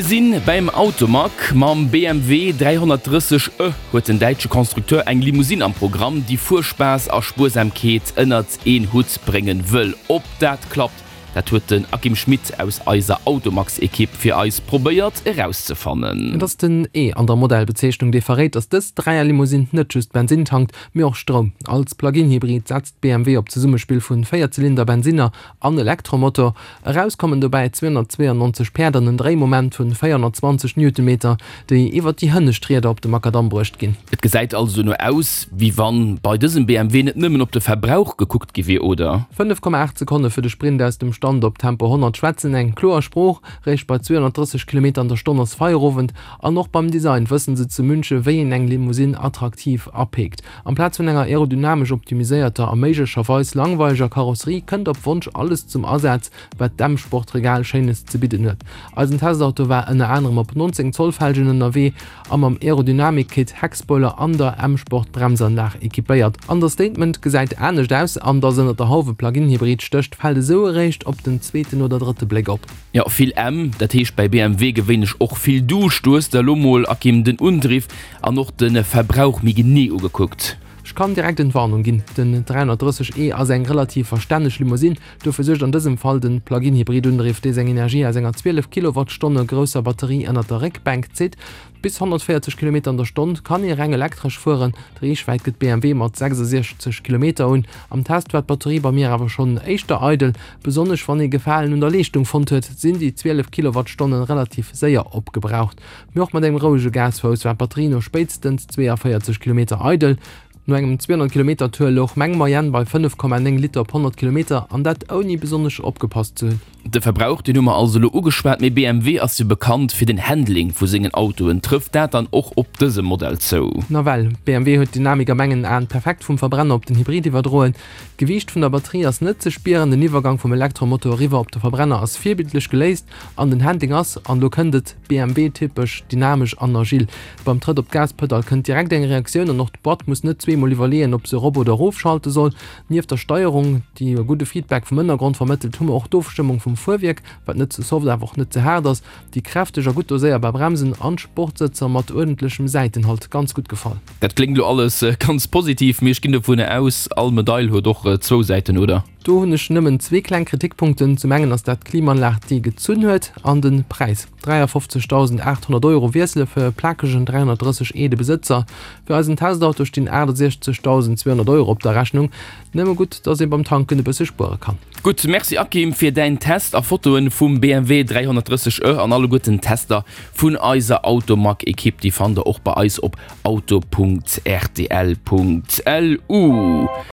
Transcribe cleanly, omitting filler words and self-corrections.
Mir sinn bäim Automag. Mam BMW 330 e huet den däitsche Constructeur eng Limousine am Programm, déi Fuerspaass a Spuersamkeet ënnert een Hutt bréngen wëll. Ob dat klappt, dat huet den Akim Schmit aus eiser Automagsekipp fir eis probéiert erauszefannen. Et ass den E an der Modellbezeechnung, dee verréit, datt dës Dräierlimousine net just Bensinn tankt, mee och Stroum. Als Plug-in-Hybrid setzt BMW op d'Zesummespill vun Véierzylinder-Bensinner an Elektromotor. Eraus kommen dobäi 292 Päerd an en Dréimoment vun 420 Newtonmeter, déi iwwer déi hënnescht Rieder op de Makadamm bruecht ginn. Et gesäit also dono aus, wéi wann bei dësem BMW net nëmmen op de Verbrauch gekuckt gi wier, oder? 5,8 Sekonne fir de Sprint aus dem Stand op Tempo 100 schwätzen eng kloer Sprooch. Réischt bei 230 Kilometer an der Stonn ass Feierowend. An och beim Design wëssen se zu Münche wéi een eng Limousine attraktiv apeekt. Amplaz vun enger aerodynamesch optimiséierter a méiglecherweis langweileger Karosserie kënnt op Wonsch alles zum Asaz, wat d'M-Sport-Regal Schéines ze bidden huet. Eisen Testauto war ënner anerem op 19 Zoll Felgen ënnerwee a mam Aerodynamik-Kit, Heckspoiler an der M-Sport-Bremsanlag equipéiert. Understatement gesäit anescht aus an dass ënner der Hauf e Plug-in-Hybrid stécht, fält esou eréischt op den zweeten oder drëtte Bléck op. Jo, vill M, dat heescht bei BMW gewéinlech och vill Duuscht. Du hues der elo mol, Akim, den Undriff an och de Verbrauch méi genee ugekuckt. Ech kann direkt Entwarnung ginn, den 330 e ass eng relativ verstänneg Limousine. Dofir suergt an dësem Fall den Plug-in-Hybrid-Undriff, dee seng Energie aus enger 12 Kilowattstonne grousser Batterie ënnert der Réckbänk zitt. Bis 140 Kilometer an der Stonn kann ee reng elektresch fueren. D'Reechwäit gëtt BMW mat 66 Kilometer un. Am Test war d'Batterie bei mir awer schonn éischter eidel. Besonnesch wann ee Gefalen un der Leeschtung fonnt huet, sinn déi 12 Kilowattstonne relativ séier opgebraucht. Mee och mat engem rouege Gasfouss war d'Batterie no spéitstens 42 Kilometer eidel. No engem 200 Kilometer Tour louch meng Moyenne bei 5,9 Liter op 100 Kilometer, an dat ouni besonnesch opgepasst ze hunn. De Verbrauch, deen hu mer also elo ugeschwat, mee BMW ass jo bekannt fir den Handling vu sengen Autoen. Trëfft dat dann och op dësem Modell zou? Nawell, BMW huet d'Dynamik a mengen Aen perfekt vum Verbrenner op den Hybrid iwwerdroen. D'Gewiicht vun der Batterie ass net ze spieren, den Iwwergang vum Elektromotor eriwwer op de Verbrenner ass virbildlech geléist an den Handling ass, an elo kënnt et, BMW-typesch dynamesch an agil. Beim Trëtt op d'Gaspedall kënnt direkt eng Reaktioun an och d'Boîte muss net zweemol iwwerleeën, ob se erop oder erofschalte soll. Nieft der Steierung, déi e gudde Feedback vum Ënnergrond vermëttelt, hu mer och d'Ofstëmmung vum Fuerwierk, wat net ze soft awer och net ze haart ass, déi kräfteg a gutt doséierbar Bremsen an d'Sportsëtzer mat uerdentlechem Säitenhalt. Ganz gutt gefall. Dat kléngt elo alles ganz positiv, mee ech ginn dovunner aus, all Medail huet och zwou Säiten, oder? Do hunn ech nëmmen zwee kleng Kritikpunkten. Zum engen ass dat d'Klimaanlag, déi gezunn huet, an de Präis. 53.800 Euro wiessele fir e plakegen 330 e de Besëtzer. Fir eisen Testauto stinn 68.200 Euro op der Rechnung. Nëmme gutt, dass ee beim Tanken e bësse spuere kann. Gutt, Merci Akim fir däin Test a Fotoen vum BMW 330 e an alleguerten Tester vun eiser Automag-Ekipp, déi fannt der och bei eis op auto.rtl.lu.